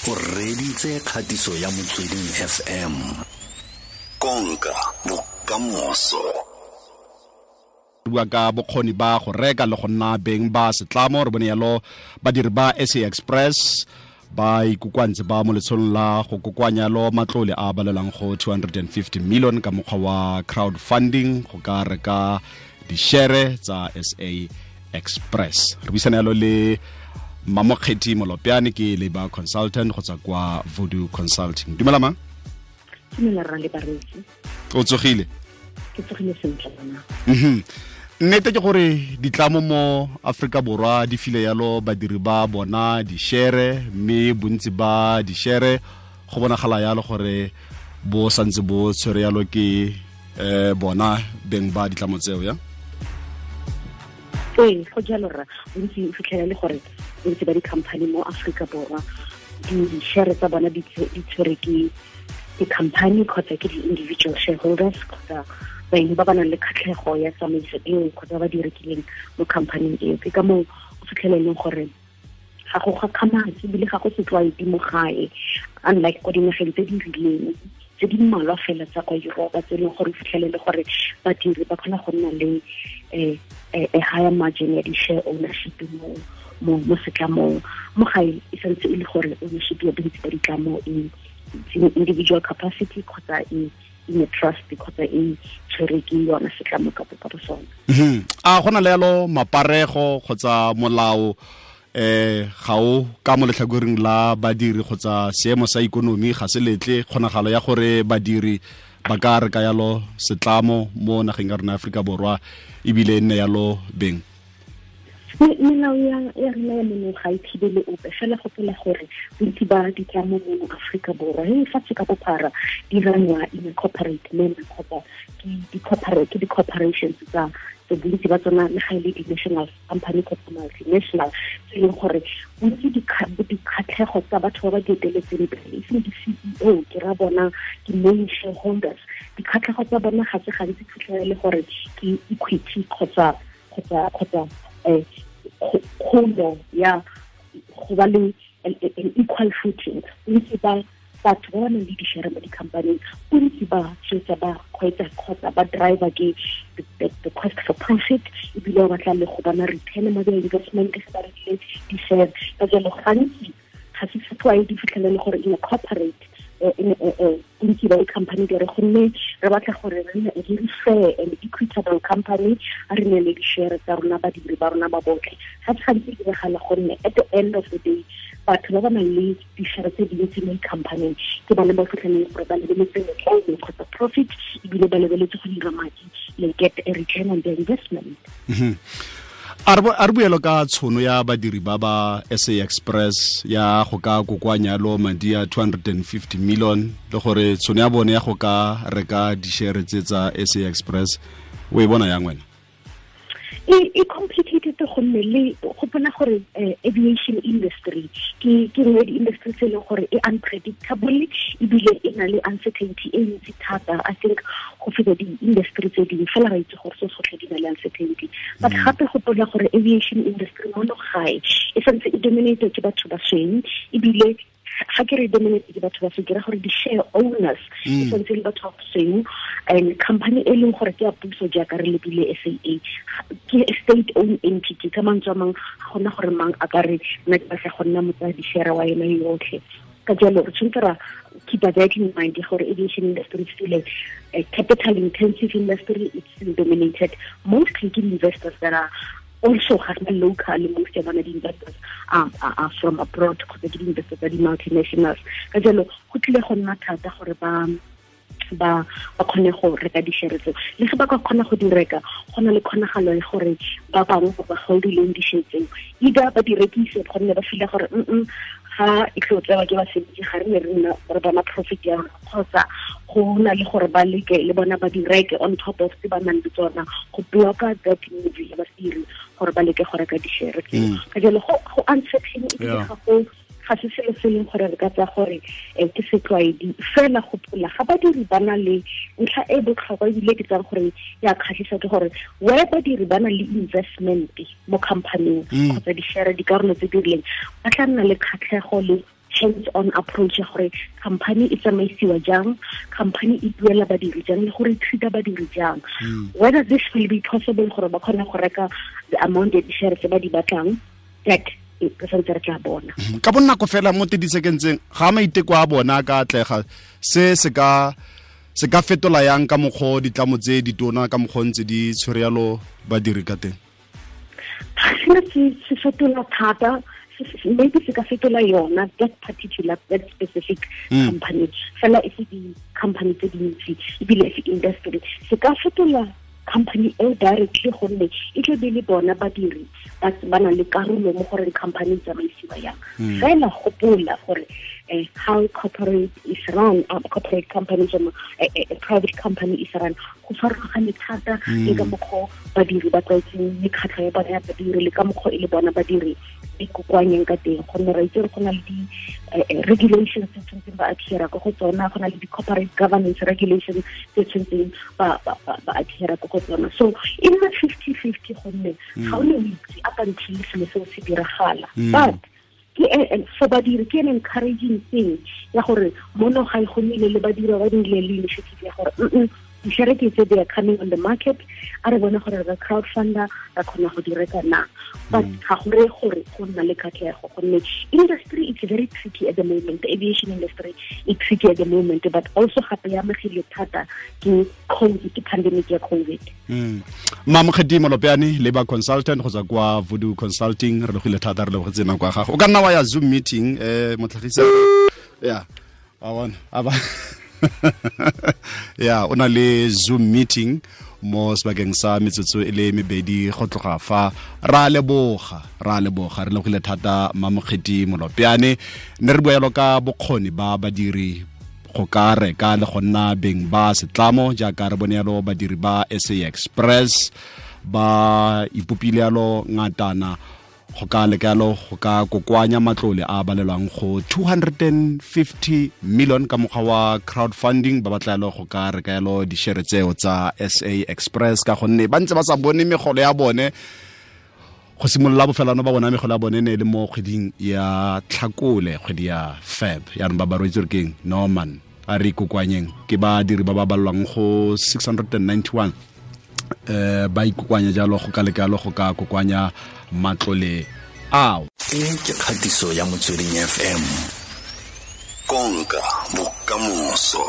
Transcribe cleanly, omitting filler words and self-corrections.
O reditse kgatiso ya Motsweding FM. Konka bokamoso. Bua ka bokgoni ba go reka le go nna beng ba setlamo. Re bone yalo badiri ba SA Express ba ikokoantse ba mo letsholong la go kokoanya lo matlole a balelang go 250 million ka mokgwa wa crowdfunding go ka reka dishere tsa SA Express. Re buisana yalo le Mamokgethi Molopyane, ke labor consultant go tswa kwa Voodoo Consulting. Dumela ma. Dumela rra le bareetsi. O tsogile? Ke tsogile sentle bana. Nnete ke gore ditlamo mo Afrika Borwa di file yalo badiri ba bona dishere, mme bontsi ba dishere go bonagala yalo gore bo santse bo tshwere yalo ke bona beng ba ditlamo tseo ya. Ee, go jalo rra. Bontsi o fitlhela le gore bontsi ba di-company mo Afrika Borwa di-share tsa bona di tshwere ke di-company kgotsa ke di-individual shareholders kgotsa baeng ba ba nang le kgatlhego ya tsamaiso eo kgotsa ba di rekileng mo company eo. Ke ka moo o fitlhela e leng gore ga go gakgamatse ebile ga go setlwaedi mo gae, unlike kwa dinageng tse di rileng tse di mmalwa fela tsa kwa Europa tse e leng gore o fitlhelele gore badiri ba kgona go nna le a higher margin ya di-share ownership mo setlamong. Mo gae e santse e le gore ownership ya bontsi ba ditlamo e individual capacity kgotsa e in a trust kgotsa e tshwere ke yona setlamo ka bo sona. A gona le yalo maparego kgotsa molao ga o ka mo letlhakoreng la badiri kgotsa seemo sa ikonomi ga se letle kgonagalo ya gore badiri ba ka reka yalo setlamo mo nageng ya rona Afrika Borwa ebile e nne yalo beng? Melao ya rena ya mono ga e thibele ope, fela gopola gore bontsi ba ditlamo mono Afrika Borwa e fatshe ka bophara di rangwa in a corporate manner kgotsa ke di-corporations tsa bontsi ba tsona le ga e le di-national company kgotsa multinational, tse e leng gore bontsi dikgatlhego tsa batho ba ba di eteletseng pele, e seng di-CEO, ke ra bona ke main shareholders, dikgatlhego tsa bona ga se gantsi fitlhela le gore ke equity kgotsa kgolo ya go ba le an equal footing. Bontsi ba batho ba ba nang le dishere mo di-company, bontsi ba tshwetsa ba kgweetsa kgotsa ba driver ke the quest for profit, ebile ba batla le go bona return mo their investment se ba rekile di-share. Ka jalo gantsi ga se setlwaedi fitlhelele gore in a corporate bontsi ba di-company di re gonne re batla gore re nne a very fair and equitable company, a re nne le di-share tsa rona badiri ba rona ba botlhe. Ga se gantsi diragala gonne at the end of the day batho ba ba nang le di-share tse dintsi mo di-company ke bone ba fitlheleng gore ba lebeletse letlole kgotsa profit, ebile ba lebeletse go dira madi le get a return on their investment. A re buelo ka tshono ya badiri ba ba SA Express ya go ka kokoanya lo madi a 250 million le gore tshono ya bone ya go ka reka dishere tse tsa SA Express o e bona yang wena? E complicated gonne le gopola gore aviation industry ke nngwe di-industry tse e leng gore e unpredictable ebile e na le uncertainty e ntsi thata. I think go feta di-industry tse dingwe fela ra itse gore se sotlhe di na le uncertainty, but gape gopola gore aviation industry mono gae e santse e dominated ke batho ba sweu, ebile ga ke re dominated ke batho ba sweu ke ra gore di-share owners e santse le batho ba sweu, and company e leng gore ke ya puso jaaka re lebile SAA ke state owned entity. Ka mantswe a mang ga gona gore mang a ka re nna ke batla go nna motsaya di-share wa yona yotlhe. Ka jalo re tshwanetse ra keep that in mind gore aviation industry is still a capital intensive industry. It's still dominated mostly ke investors that are also local. Most of the investors are from abroad kgotsa ke di-investors tsa di-multinationals. Ka jalo go tlile go nna thata gore ba kgone go reka dishere tseo. Le ge ba ka kgona go di reka, go na le kgonagalo ya gore ba bangwe ba ba holdileng dishere tseo either ba di rekise gonne ba feel gore ga e tlo tsewa ke basebetsi ga re ne re nna re bona profit ya rona, kgotsa go na le gore ba leke le bona ba di reke on top of tse ba nang le tsona go blocka that move ya badiri gore ba leke go reka dishere tseo. Ka jalo go uncertain ebile ga se selo se leng gore re ka tsaya gore ke setlwaedi. Fela gopola ga badiri ba na le ntlha e botlhokwa ebile ke tsang gore ya kgatlhisa ke gore where badiri ba na le investment mo company-ing kgotsa di-share dikarolo tse di rileng ba tla nna le kgatlhego le hands-on approach ya gore company e tsamaisiwa jang, company e duela badiri jang, le gore e treat-a badiri jang. Whether this will be possible gore ba kgone go reka the amount ya di-share tse ba di batlang, that re santse re tla bona. Ka bonako fela mo 30 seconds-eng, ga maiteko a bona ka atlega, se se ka fetola yang ka mokgwa ditlamo tse ditona, ka mokgwa ntse di tshwere yalo badiri ka teng? Ga se fetola thata, maybe se ka fetola yona that particular, that specific company. Fela e se di-company tse dintsi, ebile e se industry. Se ka fetola company eo directly gonne e tla be le bona badiri ba na le karolo mo goreng company e tsamaisiwa yang. Fela gopola gore how corporate is run, corporate companies or a private company is run, go farologane thata le ka mokgwa badiri ba tlwaetseng mekgatlho ya bona ya badiri, le ka mokgwa e le bona badiri di kokoanyeng ka teng, gonne re itse go na le di-regulations tse tshwanetseng ba adhere ko go tsona, go na le di-corporate governance regulations tse tshwanetseng ba adhere ko go tsona. So e nna 50-50 gonne ga o ne o itse up until selo seo se diragala. But for badiri ke an encouraging thing ya gore mono ga e go nnile le badiri ba nnile le initiative ya gore di-share ke tse they are coming on the market, a re bone gore re crowdfunder ra kgona go di reka na. But ga go reye gore go nna le katlego, gonne industry is very tricky at the moment. The aviation industry is tricky at the moment, but also gape ya amegile thata ke COVID, ke pandemic ya COVID. Mamokgethi Molopyane, labor consultant go tswa kwa Voodoo Consulting, re logile thata, re lebogetse nako ya gago. O ka nna wa ya Zoom meeting, motlhagisa ya a bona a ba ya o na le Zoom meeting mo sebakeng sa metsotso e le mebedi go tloga fa. Ra leboga, re lebogile thata Mamokgethi Molopyane. Ne re bua yalo ka bokgoni ba badiri go ka reka le go nna beng ba setlamo, jaaka re bone yalo badiri ba SA Express ba ipopile yalo ngatana go ka leka yalo go ka kokoanya matlole a balelwang go 250 million ka mokgwa wa crowdfunding. Ba batla yalo go ka reka yalo di-share tseo tsa SA Express, ka gonne ba ntse ba sa bone megolo ya bone go simolola bofelano ba bona megolo ya bone ne e le mo kgweding ya Tlhakole, kgwedi ya Feb. Yaanong ba ba roetse re keng Norman a re ikokoanyeng, ke badiri ba ba balelwang go 691 ba ikokoanya jalo go ka leka yalo go ka kokoanya matlole ao. E ke kgatiso ya Motsweding FM, konka bokamoso.